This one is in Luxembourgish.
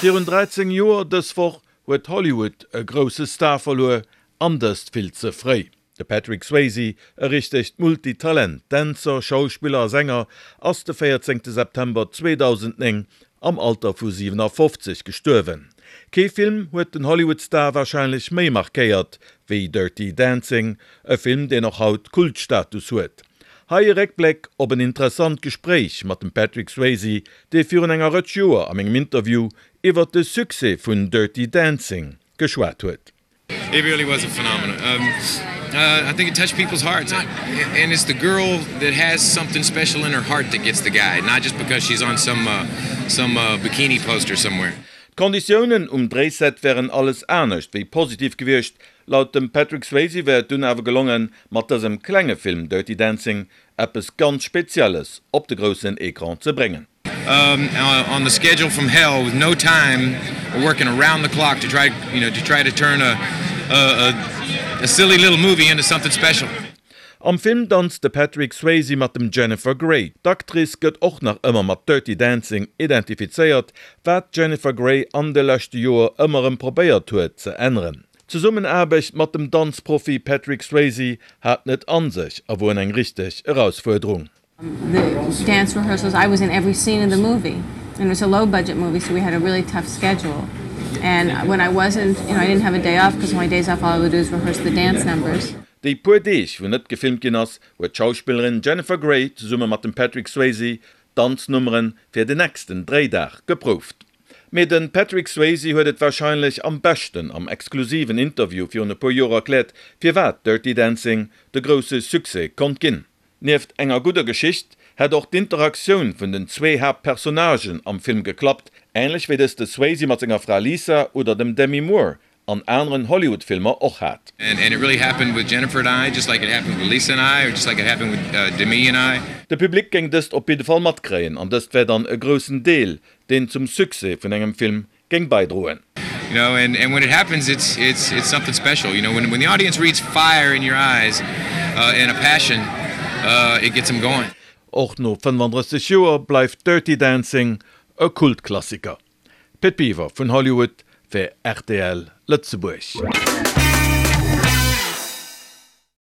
Virun 13 Joer dës Woch huet Hollywood e grousse Star verluer, an dëst vill ze fréi. De Patrick Swayze, e richtegt Multitalent, Dänzer, Schauspiller a Sänger, ass de 14 September 2009 am Alter vu 57 gestuerwen. Kee Film huet den Hollywood-Star warscheinlech méi markéiert wéi Dirty Dancing, e Film deen och haut Kultstatus huet. Hei e Réckbléck op en interessant Gespréich mat dem Patrick Swayze, dee virun enger Rëtsch Joer a mengem Interview iwwert de Succès vun Dirty Dancing geschwat huet. It really was a phenomenon. Um, uh, I think it touched people's hearts. And it's the girl that has something special in her heart that gets the guy, not just because she's on some, uh, some uh, bikini poster somewhere. D'Konditiounen um Dréiset wären alles anescht wéi positiv gewiescht. Laut dem Patrick Swayze wär et dunn awer gelongen, mat dësem klenge Film Dirty Dancing eppes ganz Spezielles op de groussen Ecran ze bréngen. Um, uh, on the schedule from hell with no time working around the clock to try you know to try to turn a, a, a, a silly little movie into something special. Am Film danzt de Patrick Swayze mat dem Jennifer Grey. D'Actrice gëtt och nach ëmmer mat Dirty Dancing identifizéiert, wat d'Jennifer Grey an de leschte Joer ëmmer erëm probéiert huet ze änneren. D'Zesummenaarbecht mat dem Danzprofi Patrick Swayze hat net an sech a wor eng richteg Erausfuerderung. The dance rehearsals I was in every scene of the movie and it was a low budget movie so we had a really tough schedule and when I wasn't you know I didn't have a day off because my days off all I would do is rehearse the dance numbers. Déi puer Deeg wou net gefilmt ginn ass, huet d'Schauspillerin Jennifer Grey zesumme mat dem Patrick Swayze d'Danznummere fir den nächsten Dréidag geprouft. Mee de Patrick Swayze huet et warscheinlech am beschten am exklusiven Interview virun e puer Joer erkläert, firwat Dirty Dancing de grousse Succès konnt ginn. Nieft enger gudder Geschicht hätt och d'Interaktioun vun den zwee Haaptpersonnagen am Film geklappt, änlech wéi dës de Swayze mat senger Fra Lisa oder dem Demi Moore an aneren Hollywood-Filmer och hat. De Public géing dëst op jidde Fall matkréien an dëst wär dann e groussen Deel, deen zum Succès vun engem Film géing bäidroen. You know, and, and when it happens, it's, it's, it's something special. You know, when, when the audience reads fire in your eyes uh, and a passion, uh, it gets them going. Och no 35 Joer bleift Dirty Dancing e Kultklassiker. Pit Biwer vun Hollywood fir rtl Lëtzebuerg.